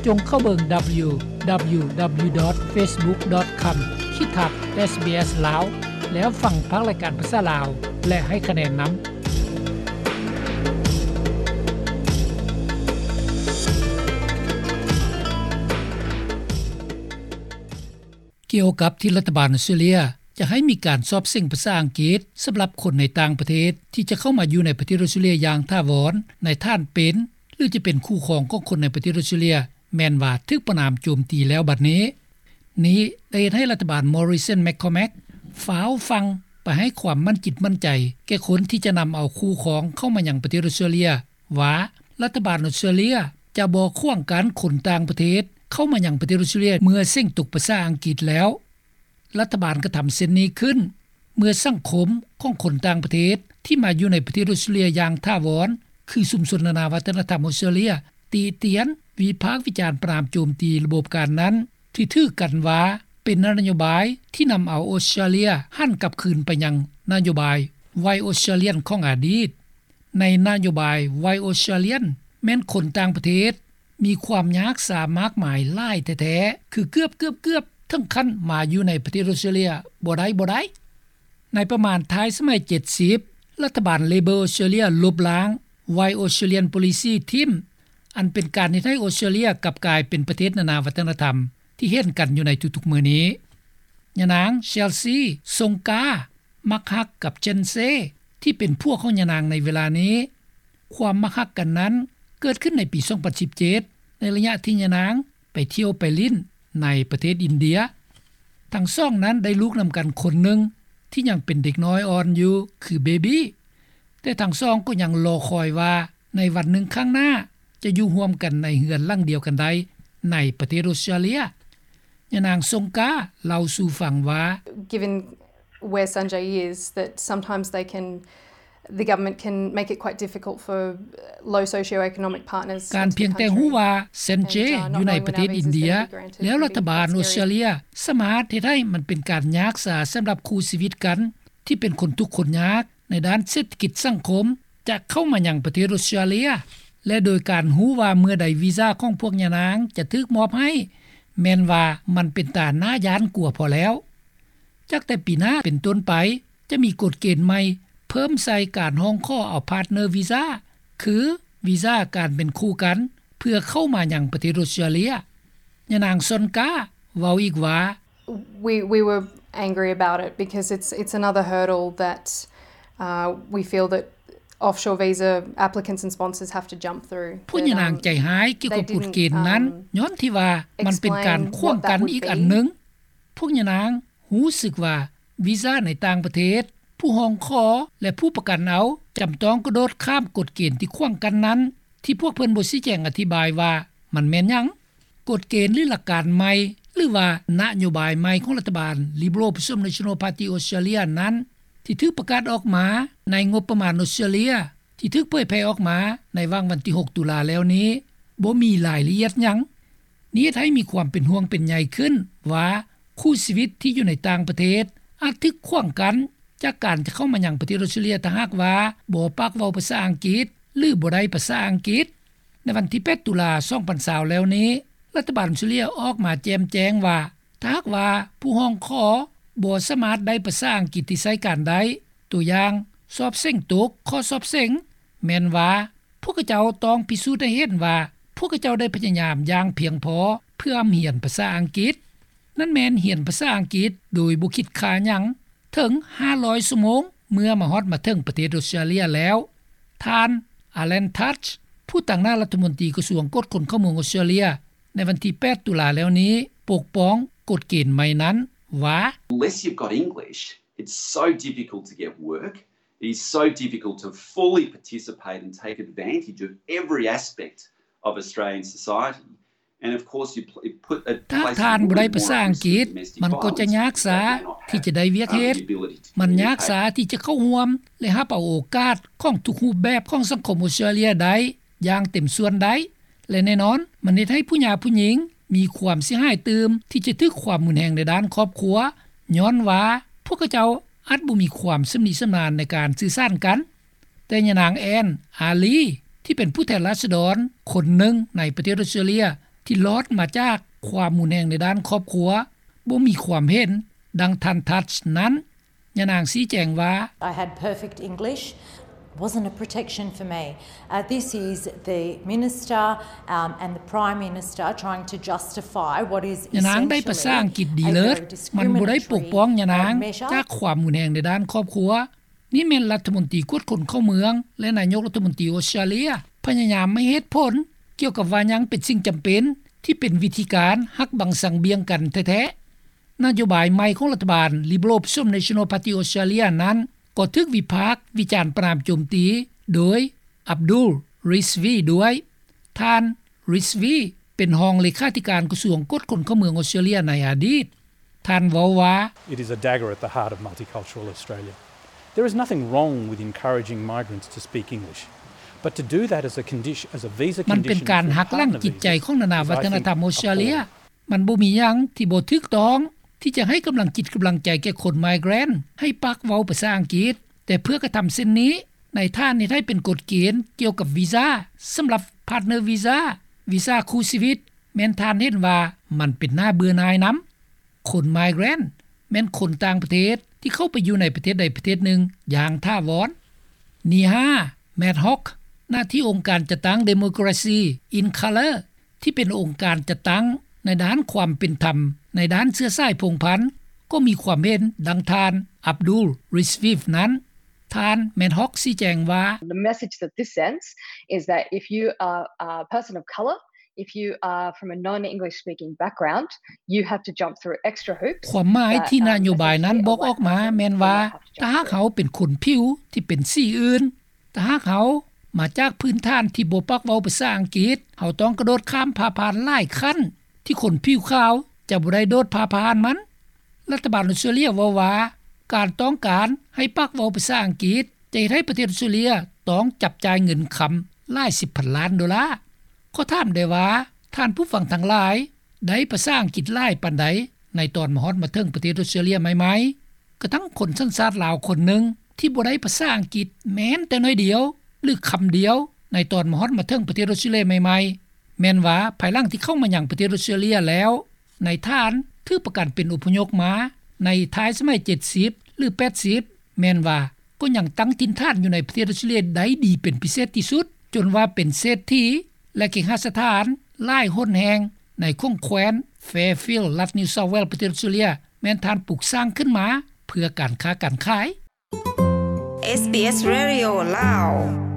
ຈົ່ງເຂົ້າເບິ່ງ www.facebook.com/sbslao ແລ້ວຟັງພາກລາຍການພາສາລາວ ແລະ ໃຫ້ຄະແນນນຳ. ກ່ຽວກັບທີ່ລັດຖະບານອົດສະຕຣາເລຍຈະໃຫ້ມີການສອບເສັງພາສາອັງກິດສຳລັບຄົນໃນຕ່າງປະເທດ ທີ່ຈະເຂົ້າມາຢູ່ໃນປະເທດອົດສະຕຣາເລຍຢ່າງຖາວອນ ໃນຖານເປັນ ຫຼື ຈະເປັນຄູ່ຄອງຂອງຄົນໃນປະເທດອົດສະຕຣາເລຍ ແມ່ນວ່າຖືກປະນາມໂຈມຕີແລ້ວບັດນີ້. ນີ້ໄດ້ເຮັດໃຫ້ລັດຖະບານ Morrison McCormack ຟ້າວຟັ່ງໄປໃຫ້ຄວາມໝັ້ນຈິດໝັ້ນໃຈແກ່ຄົນທີ່ຈະນຳເອົາຄູ່ຄອງເຂົ້າມາຍັງປະເທດອົດສະຕຣາເລຍ ວ່າລັດຖະບານອົດສະຕຣາເລຍຈະບໍ່ຂວາງກັ້ນຄົນຕ່າງປະເທດເຂົ້າມາຍັງປະເທດອົດສະຕຣາເລຍ ເມື່ອເສັງຕົກພາສາອັງກິດແລ້ວ. ລັດຖະບານກະທຳເຊັ່ນນີ້ຂຶ້ນ ເມື່ອສັງຄົມຂອງຄົນຕ່າງປະເທດທີ່ມາຢູ່ໃນປະເທດອົດສະຕຣາເລຍຢ່າງຖາວອນ ຄືຊຸມຊົນນານາວັດທະນະທຳອົດສະຕຣາເລຍ ຕິຕຽນ, ວິພາກວິຈານ, ປະນາມໂຈມຕີລະບົບການນັ້ນ ທີ່ຖືກັນວ່າເປັນນະໂຍບາຍທີ່ນຳເອົາອົດສະຕຣາເລຍຫັນກັບຄືນໄປຍັງນະໂຍບາຍ White Australian ຂອງອະດີດ. ໃນນະໂຍບາຍ White Australian ແມ່ນຄົນຕ່າງປະເທດມີຄວາມຍາກສາມາກມາຍຫຼາຍແທ້ໆ ຄືເກືອບໆ ເຖິງຂັ້ນມາຢູ່ໃນປະເທດອົດສະຕຣາເລຍບໍ່ໄດ້ ບໍ່ໄດ້. ໃນປະມານທ້າຍສະໄໝເຈັດສິບ ລັດຖະບານ Labor ອົດສະຕຣາເລຍລົບລ້າງ White Australian Policy ຖິ້ມ ອັນເປັນການເຮັດໃຫ້ອົດສະຕຣາເລຍກັບກາຍເປັນປະເທດນານາວັດທະນະທຳທີ່ເຫັນກັນຢູ່ໃນທຸກໆມື້ນີ້. ຍານາງ Chelsea Songa ມັກຮັກກັບ Chen Sei ທີ່ເປັນຜົວຂອງຍານາງໃນເວລານີ້. ຄວາມມັກຮັກກັນນັ້ນເກີດຂຶ້ນໃນປີສອງພັນສິບເຈັດ ໃນໄລຍະທີ່ຍານາງໄປທ່ຽວໄປຫຼິ້ນໃນປະເທດອິນເດຍ. ທັງສອງນັ້ນໄດ້ລູກນຳກັນຄົນໜຶ່ງທີ່ຍັງເປັນເດັກນ້ອຍອ່ອນຢູ່ ຄືເບບີ ແຕ່ທັງສອງກໍຍັງລໍຄອຍວ່າໃນວັນໜຶ່ງຂ້າງໜ້າຈະຢູ່ຮ່ວມກັນໃນເຮືອນຫຼັງດຽວກັນໄດ້ໃນປະເທດອົດສະຕຣາເລຍ. ຍານາງ Songa ເລົ່າສູ່ຟັງວ່າ Given where Sanjay is, that sometimes they can, the government can make it quite difficult for low socioeconomic partners. ການພຽງແຕ່ຮູ້ວ່າ Sanjay ຢູ່ໃນປະເທດອິນເດຍ ແລ້ວລັດຖະບານອົດສະຕຣາເລຍສາມາດເຮັດໃຫ້ມັນເປັນການຍາກສາສຳລັບຄູ່ຊີວິດກັນ ທີ່ເປັນຄົນທຸກຄົນຍາກໃນດ້ານເສດຖະກິດສັງຄົມ ຈະເຂົ້າມາຍັງປະເທດອົດສະຕຣາເລຍ ແລະ ໂດຍການຮູ້ວ່າເມື່ອໃດວີຊາຂອງພວກຍານາງຈະຖືກມອບໃຫ້ ແມ່ນວ່າມັນເປັນຕາໜ້າຢ້ານກົວພໍແລ້ວ. ຈາກແຕ່ປີໜ້າເປັນຕົ້ນໄປ ຈະມີກົດເກນໃໝ່ເພີ່ມໃສ່ການຮ້ອງຂໍເອົາ partner visa ຄືວີຊາການເປັນຄູ່ກັນ ເພື່ອເຂົ້າມາຍັງປະເທດອົດສະຕຣາເລຍ. ຍານາງ Songa ເວົ້າອີກວ່າ We, we were angry about it because it's, it's another hurdle that, uh, we feel that offshore visa applicants and sponsors have to jump through. ພວກຍານາງໃຈຮ້າຍກ່ຽວກັບກົດເກນນັ້ນ ຍ້ອນທີ່ວ່າມັນເປັນການຂວາງກັ້ນອີກອັນໜຶ່ງ. ພວກຍານາງຮູ້ສຶກວ່າວີຊາໃນຕ່າງປະເທດ ຜູ້ຮ້ອງຂໍ ແລະ ຜູ້ປະກັນເອົາ ຈຳຕ້ອງກະໂດດຂ້າມກົດເກນທີ່ຂວາງກັ້ນນັ້ນ ທີ່ພວກເພິ່ນບໍ່ຊີ້ແຈງອະທິບາຍວ່າມັນແມ່ນຫຍັງ. ກົດເກນ ຫຼື ຫຼັກການໃໝ່ ຫຼືວ່ານະໂຍບາຍໃໝ່ຂອງລັດຖະບານ Liberal ປະສົມ National Party Australia ນັ້ນ ທີ່ຖືກປະກາດອອກມາໃນງົບປະມານອົດສະຕຣາເລຍ ທີ່ຖືກເຜີຍແຜ່ອອກມາໃນຫວ່າງວັນທີຫົກຕຸລາແລ້ວນີ້ ບໍ່ມີລາຍລະອຽດຫຍັງ. ນີ້ເຮັດໃຫ້ມີຄວາມເປັນຫ່ວງເປັນໃຍຂຶ້ນວ່າ ຄູ່ຊີວິດທີ່ຢູ່ໃນຕ່າງປະເທດອາດຖືກຂວາງກັ້ນຈາກການຈະເຂົ້າມາຍັງປະເທດອົດສະຕຣາເລຍ ຖ້າຫາກວ່າບໍ່ປາກເວົ້າພາສາອັງກິດ ຫຼື ບໍ່ໄດ້ພາສາອັງກິດ. ໃນວັນທີແປດຕຸລາສອງພັນຊາວແລ້ວນີ້ ລັດຖະບານອົດສະຕຣາເລຍອອກມາແຈ່ມແຈ້ງວ່າ ຖ້າຫາກວ່າຜູ້ຮ້ອງຂໍບໍ່ສາມາດໄດ້ພາສາອັງກິດທີ່ໃຊ້ການໄດ້, ຕົວຢ່າງ ສອບເສັງຕົກຂໍ້ສອບເສັງ, ແມ່ນວ່າພວກເຂົາເຈົ້າຕ້ອງພິສູດໃຫ້ເຫັນວ່າ ພວກເຂົາເຈົ້າໄດ້ພະຍາຍາມຢ່າງພຽງພໍເພື່ອຮຽນພາສາອັງກິດ, ນັ້ນແມ່ນຮຽນພາສາອັງກິດໂດຍບໍ່ຄິດຄ່າຫຍັງ ເຖິງຫ້າຮ້ອຍຊົ່ວໂມງ ເມື່ອມາຮອດມາເຖິງປະເທດອົດສະຕຣາເລຍແລ້ວ. ທ່ານ Alan Tudge ຜູ້ຕາງໜ້າລັດຖະມົນຕີກະຊວງກວດຄົນເຂົ້າເມືອງອົດສະຕຣາເລຍ ໃນວັນທີແປດຕຸລາແລ້ວນີ້ ປົກປ້ອງກົດເກນໃໝ່ນັ້ນວ່າ Unless you've got English, it's so difficult to get work. It is so difficult to fully participate and take advantage of every aspect of Australian society. ຖ້າທ່ານບໍ່ໄດ້ພາສາອັງກິດ ມັນກໍຈະຍາກຊ້າທີ່ຈະໄດ້ວຽກເຮັດ, ມັນຍາກຊ້າທີ່ຈະເຂົ້າຮ່ວມ ແລະ ຮັບເອົາໂອກາດຂອງທຸກຮູບແບບຂອງສັງຄົມອົດສະຕຣາເລຍໄດ້ຢ່າງເຕັມສ່ວນໄດ້ ແລະ ແນ່ນອນ ມັນເຮັດໃຫ້ຜູ້ຍາກຜູ້ຍິງມີຄວາມເສຍຫາຍຕື່ມ ທີ່ຈະຖືກຄວາມຮຸນແຮງໃນດ້ານຄອບຄົວ ຍ້ອນວ່າພວກເຂົາເຈົ້າອາດບໍ່ມີຄວາມຊຳນິຊຳນານໃນການສື່ສານກັນ. ແຕ່ຍານາງ Anne Aly ທີ່ເປັນຜູ້ແທນລາຊະດອນຄົນໜຶ່ງໃນປະເທດອົດສະຕຣາເລຍ ທີ່ລອດມາຈາກຄວາມຮຸນແຮງໃນດ້ານຄອບຄົວ ບໍ່ມີຄວາມເຫັນດັ່ງທ່ານ Touch ນັ້ນ. ຍານາງຊີ້ແຈງວ່າ I had perfect English, wasn't a protection for me. Uh, this is the minister, um, and the Prime Minister trying to justify what is ຍານາງໄດ້ພາສາອັງກິດດີເລີດ, ມັນບໍ່ໄດ້ປົກປ້ອງຍານາງຈາກຄວາມຮຸນແຮງໃນດ້ານຄອບຄົວ. ນີ້ແມ່ນລັດຖະມົນຕີກວດຄົນເຂົ້າເມືອງ ແລະ ນາຍົກລັດຖະມົນຕີອົດສະຕຣາເລຍ ພະຍາຍາມໃຫ້ເຫດຜົນກ່ຽວກັບວ່າຫຍັງເປັນສິ່ງຈຳເປັນ ທີ່ເປັນວິທີການຫັກບັງສັງບຽງກັນແທ້ໆ. ນະໂຍບາຍໃໝ່ຂອງລັດຖະບານ Liberal Opposition National Party Australia ນັ້ນ ກໍຖືກວິພາກວິຈານປະນາມໂຈມຕີໂດຍ Abdul Rizvi ດ້ວຍ. ທ່ານ Rizvi ເປັນຮອງເລຂາທິການກະຊວງກວດຄົນເຂົ້າເມືອງອົດສະຕຣາເລຍໃນອະດີດ. ທ່ານເວົ້າວ່າ It is a dagger at the heart of multicultural Australia. There is nothing wrong with encouraging migrants to speak English, but to do that as a condition, as a visa condition, ມັນເປັນການຫັກລ້າງຈິດໃຈຂອງນານາວັດທະນະທຳອົດສະຕຣາເລຍ. ມັນບໍ່ມີຫຍັງທີ່ບໍ່ຖືກຕ້ອງທີ່ຈະໃຫ້ກຳລັງຈິດກຳລັງໃຈແກ່ຄົນ migrant ໃຫ້ປາກເວົ້າພາສາອັງກິດ, ແຕ່ເພື່ອກະທຳເຊັ່ນນີ້ ນາຍທ່ານເຮັດໃຫ້ເປັນກົດເກນກ່ຽວກັບວີຊາສຳລັບ partner visa, ວີຊາຄູ່ຊີວິດ, ແມ່ນທ່ານເຫັນວ່າມັນເປັນໜ້າເບື່ອໜ່າຍນຳ. ຄົນ migrant ແມ່ນຄົນຕ່າງປະເທດທີ່ເຂົ້າໄປຢູ່ໃນປະເທດໃດປະເທດໜຶ່ງຢ່າງຖາວອນ. ນີຮາ ແມດຮອກ ໜ້າທີ່ອົງການຈັດຕັ້ງ Democracy in Colour ທີ່ເປັນອົງການຈັດຕັ້ງໃນດ້ານຄວາມເປັນທຳໃນດ້ານເຊື້ອສາຍພົງພັນ ກໍມີຄວາມເຫັນດັ່ງທ່ານ Abdul Rizvi ນັ້ນ. ທ່ານ ແມດຮອກ ຊີ້ແຈງວ່າ The message that this sends is that if you are a person of colour, if you are from a non-English speaking background, you have to jump through extra hoops. ຄວາມໝາຍທີ່ນະໂຍບາຍນັ້ນບອກອອກມາແມ່ນວ່າ ຖ້າຫາກເຮົາເປັນຄົນຜິວທີ່ເປັນສີອື່ນ, ຖ້າຫາກເຮົາມາຈາກພື້ນຖານທີ່ບໍ່ປາກເວົ້າພາສາອັງກິດ, ເຮົາຕ້ອງກະໂດດຂ້າມຜ່າຜ່ານຫຼາຍຂັ້ນທີ່ຄົນຜິວຂາວຈະບໍ່ໄດ້ໂດດຜ່າຜ່ານມັນ. ລັດຖະບານອົດສະຕຣາເລຍເວົ້າວ່າ ການຕ້ອງການໃຫ້ປາກເວົ້າພາສາອັງກິດ ຈະເຮັດໃຫ້ປະເທດອົດສະຕຣາເລຍຕ້ອງຈັບຈ່າຍເງິນຄຳຫຼາຍສິບພັນລ້ານໂດລາ. ຂໍຖາມໄດ້ວ່າ ທ່ານຜູ້ຟັງທັງຫຼາຍ ໄດ້ພາສາອັງກິດຫຼາຍປານໃດ ໃນຕອນມາຮອດມາເຖິງປະເທດອົດສະຕຣາເລຍໃໝ່ໆ? ກະທັ່ງຄົນສັນຊາດລາວຄົນໜຶ່ງທີ່ບໍ່ໄດ້ພາສາອັງກິດແມ້ນແຕ່ໜ້ອຍດຽວ ຫຼື ຄຳດຽວ ໃນຕອນມາຮອດມາເຖິງປະເທດອົດສະຕຣາເລຍໃໝ່ໆ ແມ່ນວ່າພາຍຫຼັງທີ່ເຂົ້າມາຍັງປະເທດອົດສະຕຣາເລຍແລ້ວ ນາຍທ່ານຖືກປະກັນເປັນອົບພະຍົບມາໃນທ້າຍສະໄໝເຈັດສິບ ຫຼື ແປດສິບ ແມ່ນວ່າກໍຍັງຕັ້ງຖິ່ນຖານຢູ່ໃນປະເທດອົດສະຕຣາເລຍໄດ້ດີເປັນພິເສດທີ່ສຸດ ຈົນວ່າເປັນເສດຖີ ແລະ ເຄຫະສະຖານຫຼາຍຫົນແຫ່ງໃນຂົງແຂວນ Fairfield ລັດ New South Wales ປະເທດອົດສະຕຣາເລຍ ແມ່ນທ່ານປຸກສ້າງຂຶ້ນມາເພື່ອການຄ້າການຂາຍ. ເອສບີເອສ Radio ລາວ.